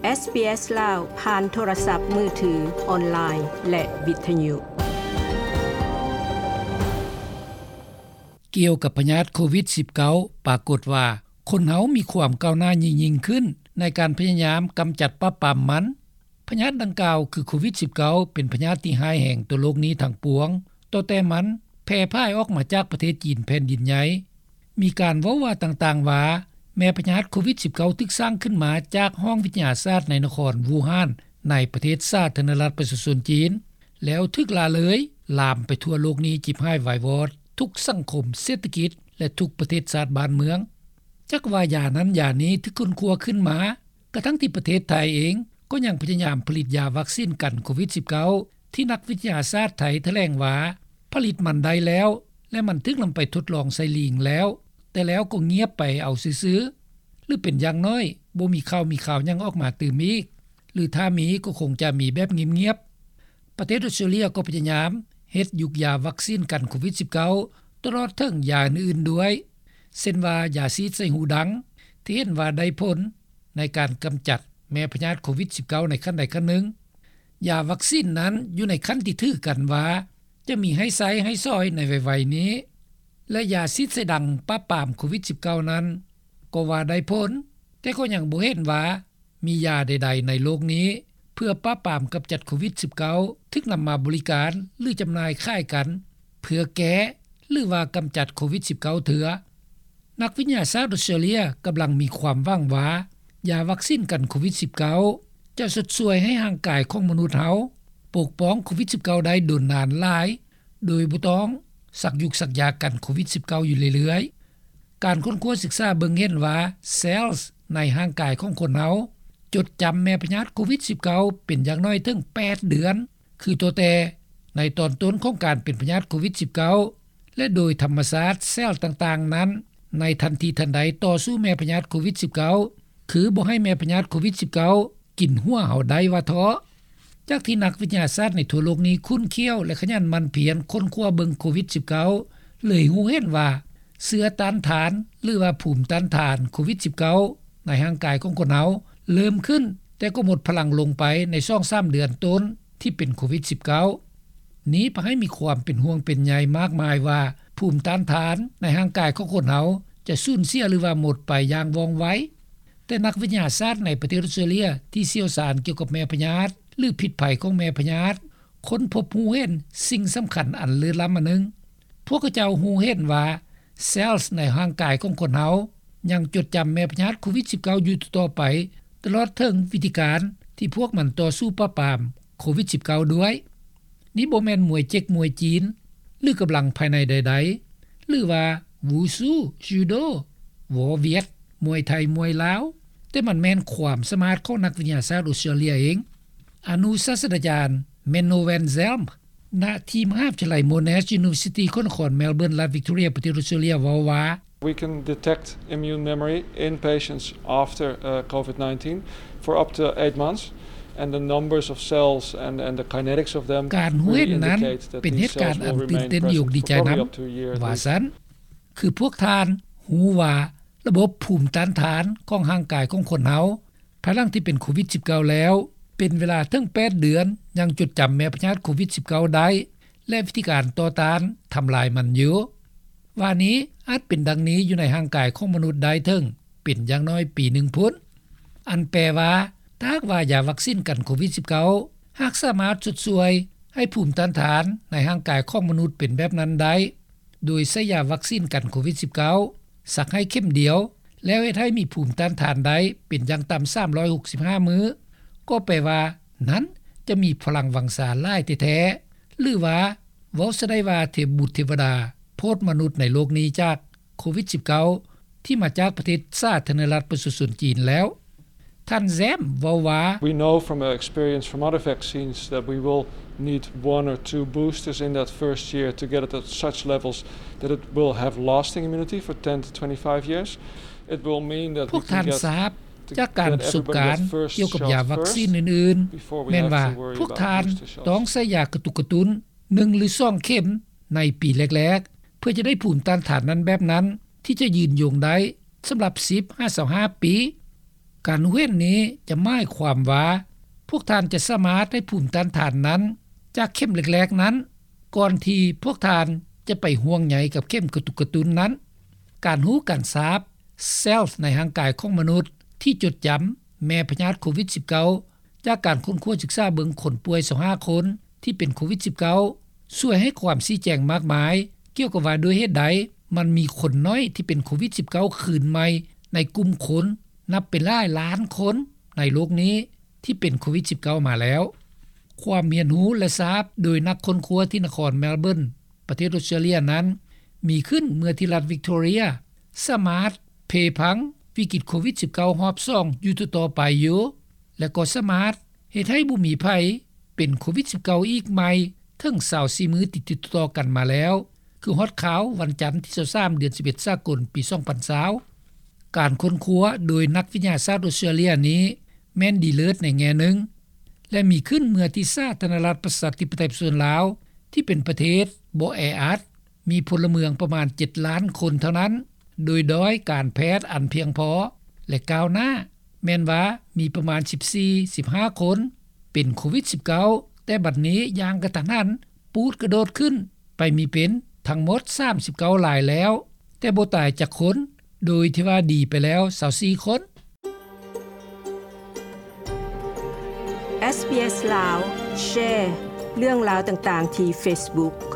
ເອສບີເອສ ລາວ ຜ່ານໂທລະສັບມືຖື, ອອນລາຍ ແລະ ວິທະຍຸ. ກ່ຽວກັບພະຍາດໂຄວິດສິບເກົ້າ ປາກົດວ່າຄົນເຮົາມີຄວາມກ້າວໜ້າຍິ່ງໆຂຶ້ນໃນການພະຍາຍາມກຳຈັດປາບປາມມັນ. ພະຍາດດັ່ງກ່າວຄືໂຄວິດສິບເກົ້າ ເປັນພະຍາດທີ່ຮ້າຍແຮງຕໍ່ໂລກນີ້ທັງປວງ, ຕັ້ງແຕ່ມັນແຜ່ພາຍອອກມາຈາກປະເທດຈີນແຜ່ນດິນໃຫຍ່. ມີການເວົ້າວ່າຕ່າງໆວ່າ ແມ່ພະຍາດໂຄວິດສິບເກົ້າ ຖືກສ້າງຂຶ້ນມາຈາກຫ້ອງວິທະຍາສາດໃນນະຄອນວູຮານ ໃນປະເທດສາທາລະນະລັດປະຊາຊົນຈີນ, ແລ້ວຖືກລະເລີຍລາມໄປທົ່ວໂລກນີ້ ຈິບຫາຍວາຍວອດທຸກສັງຄົມ, ເສດຖະກິດ ແລະ ທຸກປະເທດຊາດບ້ານເມືອງ. ຈັກວ່າຢານັ້ນຢານີ້ຖືກຄົ້ນຄວ້າຂຶ້ນມາ, ກະທັ່ງທີ່ປະເທດໄທເອງກໍຍັງພະຍາຍາມຜະລິດຢາວັກຊີນກັນໂຄວິດສິບເກົ້າ ທີ່ນັກວິທະຍາສາດໄທຖະແຫຼງວ່າ ຜະລິດມັນໄດ້ແລ້ວ ແລະ ມັນຖືກນຳໄປທົດລອງໃສ່ລີງແລ້ວ, ແຕ່ແລ້ວກໍງຽບໄປເອົາຊື່ໆ ຫຼື ເປັນຢ່າງໜ້ອຍບໍ່ມີຂ່າວມີຄາວຫຍັງອອກມາຕື່ມອີກ ຫຼື ຖ້າມີກໍຄົງຈະມີແບບງຽບໆ. ປະເທດອອສເຕຣເລຍກໍພະຍາຍາມເຮັດຢຸກຢາວັກຊີນກັນໂຄວິດສິບເກົ້າ ຕະຫຼອດເຖິງຢາອື່ນໆດ້ວຍ, ເຊັ່ນວ່າຢາສີດໃສ່ຫູດັງ ທີ່ເຫັນວ່າໄດ້ຜົນໃນການກຳຈັດແມ່ພະຍາດໂຄວິດສິບເກົ້າ ໃນຂັ້ນໃດຂັ້ນໜຶ່ງ. ຢາວັກຊີນນັ້ນຢູ່ໃນຂັ້ນທີ່ຖືກັນວ່າຈະມີໃຫ້ໃຊ້ໃຫ້ສອຍໃນໄວໆນີ້ ແລະ ຢາສີດໃສ່ດັງປາບປາມໂຄວິດສິບເກົ້ານັ້ນກໍວ່າໄດ້ຜົນ, ແຕ່ກໍຍັງບໍ່ເຫັນວ່າ ມີຢາໃດໆໃນໂລກນີ້ເພື່ອປາບປາມກຳຈັດໂຄວິດສິບເກົ້າ ຖືກນຳມາບໍລິການ ຫຼື ຈຳໜ່າຍຂາຍກັນ ເພື່ອແກ້ ຫຼືວ່າກຳຈັດໂຄວິດສິບເກົ້າເທື່ອ. ນັກວິທະຍາສາດອອສເຕຣເລຍກຳລັງມີຄວາມຫວັງວ່າ ຢາວັກຊີນກັນໂຄວິດສິບເກົ້າ ຈະຊົດຊ່ວຍໃຫ້ຮ່າງກາຍຂອງມະນຸດເຮົາປົກປ້ອງໂຄວິດສິບເກົ້າໄດ້ດົນນານຫຼາຍ ໂດຍບໍ່ຕ້ອງສັກຢຸກສັກຢາກັນໂຄວິດສິບເກົ້າຢູ່ເລື້ອຍໆ. ການຄົ້ນຄວ້າສຶກສາເບິ່ງເຫັນວ່າ cells ໃນຮ່າງກາຍຂອງຄົນເຮົາຈົດຈຳແມ່ພະຍາດໂຄວິດສິບເກົ້າ ເປັນຢ່າງໜ້ອຍເຖິງແປດເດືອນ, ຄືຕັ້ງແຕ່ໃນຕອນຕົ້ນຂອງການເປັນພະຍາດໂຄວິດສິບເກົ້າ ແລະ ໂດຍທຳມະຊາດ cell ຕ່າງໆນັ້ນ ໃນທັນທີທັນໃດຕໍ່ສູ້ແມ່ພະຍາດໂຄວິດສິບເກົ້າ ຄືບໍ່ໃຫ້ແມ່ພະຍາດໂຄວິດສິບເກົ້າ ກິນຫົວເຮົາໄດ້ວ່າເທາະ. ຈາກທີ່ນັກວິທະຍາສາດໃນທົ່ວໂລກນີ້ຂຸ້ນຂ້ຽວ ແລະ ຂະຫຍັນໝັ່ນພຽນຄົ້ນຄວ້າເບິ່ງໂຄວິດສິບເກົ້າ ເລີຍຮູ້ເຫັນວ່າ ເຊື້ອຕ້ານທານ ຫຼືວ່າພູມຕ້ານທານໂຄວິດສິບເກົ້າ ໃນຮ່າງກາຍຂອງຄົນເຮົາເລີ່ມຂຶ້ນ, ແຕ່ກໍໝົດພະລັງລົງໄປໃນສອງສາມເດືອນຕົ້ນທີ່ເປັນໂຄວິດສິບເກົ້າ. ນີ້ພາໃຫ້ມີຄວາມເປັນຫ່ວງເປັນໃຍມາກມາຍວ່າ ພູມຕ້ານທານໃນຮ່າງກາຍຂອງຄົນເຮົາຈະສູນເສຍ ຫຼືວ່າໝົດໄປຢ່າງວ່ອງໄວ. ແຕ່ນັກວິທະຍາສາດໃນປະເທດອອສເຕຣເລຍທີ່ຊ່ຽວຊານກ່ຽວກັບແມ່ພະຍາດ ຫຼື ພິດໄພຂອງແມ່ພະຍາດ ຄົ້ນພົບຮູ້ເຫັນສິ່ງສຳຄັນອັນເລີດລ້ຳອັນໜຶ່ງ. ພວກເຂົາເຈົ້າຮູ້ເຫັນວ່າ cells ໃນຮ່າງກາຍຂອງຄົນເຮົາຍັງຈົດຈຳແມ່ພະຍາດໂຄວິດສິບເກົ້າ ຢູ່ຕໍ່ໆໄປ, ຕະຫຼອດເຖິງວິທີການທີ່ພວກມັນຕໍ່ສູ້ປາບປາມໂຄວິດສິບເກົ້າດ້ວຍ. ນີ້ບໍ່ແມ່ນມວຍເຈັກມວຍຈີນ ຫຼື ກຳລັງພາຍໃນໃດໆ ຫຼືວ່າ Wushu, Judo, War Viet, ມວຍໄທ, ມວຍລາວ, ແຕ່ມັນແມ່ນຄວາມສາມາດຂອງນັກວິທະຍາສາດອອສເຕຣເລຍເອງ. ອະນຸສາດສະດາຈານ Menno van Zelm ນະທີ່ມະຫາວິທະຍາໄລ Monash University ຂອງນະຄອນ Melbourne ລັດ Victoria ປະເທດອອສເຕຣເລຍ ເວົ້າວ່າ We can detect immune memory in patients after, uh, COVID nineteen for up to eight months, and the numbers of cells and, and the kinetics of them ການຮູ້ເຫັນນັ້ນເປັນເຫດການອັນຕື່ນເຕັ້ນຢູ່ດີໃຈນຳ ວ່າຊັ້ນ. ຄືພວກທ່ານຮູ້ວ່າລະບົບພູມຕ້ານທານຂອງຮ່າງກາຍຂອງຄົນເຮົາ ພາຍຫຼັງທີ່ເປັນໂຄວິດສິບເກົ້າແລ້ວ ເປັນເວລາເຖິງແປດເດືອນ ຍັງຈົດຈຳແມ່ພະຍາດໂຄວິດສິບເກົ້າໄດ້ ແລະ ວິທີການຕໍ່ຕ້ານທຳລາຍມັນຢູ່. ວ່ານີ້ອາດເປັນດັ່ງນີ້ຢູ່ໃນຮ່າງກາຍຂອງມະນຸດໄດ້ເຖິງເປັນຢ່າງໜ້ອຍປີໜຶ່ງພຸ້ນ. ອັນແປວ່າ ຖ້າຫາກວ່າຢາວັກຊີນກັນໂຄວິດສິບເກົ້າ ຫາກສາມາດຊົດຊ່ວຍໃຫ້ພູມຕ້ານທານໃນຮ່າງກາຍຂອງມະນຸດເປັນແບບນັ້ນໄດ້ ໂດຍໃຊ້ຢາວັກຊີນກັນໂຄວິດສິບເກົ້າ ສັກໃຫ້ເຂັມດຽວ ແລ້ວເຮັດໃຫ້ມີພູມຕ້ານທານໄດ້ເປັນຢ່າງຕ່ຳສາມຮ້ອຍຫົກສິບຫ້າມື້ ກໍແປວ່ານັ້ນຈະມີພະລັງວັງຊາຫຼາຍແທ້ໆ ຫຼືວ່າເວົ້າຊະໄດ້ວ່າເທບບຸດເທວະດາໂຜດມະນຸດໃນໂລກນີ້ຈາກໂຄວິດສິບເກົ້າ ທີ່ມາຈາກປະເທດສາທາລະນະລັດປະຊາຊົນຈີນແລ້ວ. ທ່ານ Zelm ເວົ້າວ່າ We know from our experience from other vaccines that we will need one or two boosters in that first year to get it at such levels that it will have lasting immunity for ten to twenty-five years. It will mean that we can get, to get everybody that first shot first before we have to worry about booster shots. ພວກທ່ານຊາບຈາກການສົບການກ່ຽວກັບຢາວັກຊີນອື່ນໆ ແມ່ນວ່າພວກທ່ານຕ້ອງໃຊ້ຢາກະຕຸກກະຕຸ້ນໜຶ່ງ ຫຼື ສອງເຂັມໃນປີແລກໆ ເພື່ອຈະໄດ້ພູມຕ້ານທານນັ້ນແບບນັ້ນ ທີ່ຈະຍືນຍົງໄດ້ສຳລັບສິບຫາຊາວຫ້າປີ. ການຮູ້ເຫັນນີ້ຈະໝາຍຄວາມວ່າ ພວກທ່ານຈະສາມາດໄດ້ພູມຕ້ານທານນັ້ນ ຈາກເຂັມແລກໆນັ້ນ ກ່ອນທີ່ພວກທ່ານຈະໄປຫ່ວງໃຍກັບເຂັມກະຕຸກກະຕຸ້ນນັ້ນ. ການຮູ້ການຊາບ cells ໃນຮ່າງກາຍຂອງມະນຸດທີ່ຈົດຈຳແມ່ພະຍາດໂຄວິດ-19 ຈາກການຄົ້ນຄວ້າສຶກສາເບິ່ງຄົນປ່ວຍ 25 ຄົນ ທີ່ເປັນໂຄວິດ-19 ຊ່ວຍໃຫ້ຄວາມຊີ້ແຈງມາກມາຍ ກ່ຽວກັບວ່າດ້ວຍເຫດໃດ ມັນມີຄົນນ້ອຍທີ່ເປັນໂຄວິດ-19 ຄືນໃໝ່ໃນກຸ່ມຄົນ ນັບເປັນຫຼາຍລ້ານຄົນໃນໂລກນີ້ ທີ່ເປັນໂຄວິດ-19 ມາແລ້ວ. ຄວາມຮຽນຮູ້ ແລະ ຊາບໂດຍນັກຄົ້ນຄວ້າທີ່ນະຄອນ Melbourne ປະເທດ Australia ນັ້ນ ມີຂຶ້ນເມື່ອທີ່ລັດ Victoria ສາມາດເພພັງວິກິດໂຄວິດ-19 ຮອບສອງຢູ່ຕໍ່ໆໄປຢູ່ ແລະ ກໍສາມາດເຮັດໃຫ້ບໍ່ມີໃຜເປັນໂຄວິດ-19 ອີກໃໝ່ເຖິງ 24 ມື້ຕິດໆຕໍ່ກັນມາແລ້ວ ຄືຮອດຄາວວັນຈັນທີ 23 ເດືອນ 11 ສາກົນ ປີ 2020. ການຄົ້ນຄວ້າໂດຍນັກວິທະຍາສາດ Australia ນີ້ ແມ່ນດີເລີດໃນແງ່ໜຶ່ງ ແລະ ມີຂຶ້ນເມື່ອທີ່ສາທາລະນະລັດ ປະຊາທິປະໄຕ ປະຊາຊົນລາວ ທີ່ເປັນປະເທດບໍ່ແອອັດ ມີພົນລະເມືອງປະມານ 7 ລ້ານຄົນເທົ່ານັ້ນ ໂດຍດ້ອຍການແພດອັນພຽງພໍ ແລະ ກ້າວໜ້າ ແມ່ນວ່າມີປະມານ 14-15 ຄົນ ເປັນໂຄວິດ-19 ແຕ່ບັດນີ້ຢ່າງກະທັນຫັນ ປູດກະໂດດຂຶ້ນໄປມີເປັນທັງໝົດ 39 ລາຍແລ້ວ ແຕ່ບໍ່ຕາຍຈັກຄົນ ໂດຍທີ່ວ່າດີໄປແລ້ວ 24 ຄົນ. SBS ລາວ ແຊ ເລື່ອງລາວຕ່າງໆທີ່ Facebook.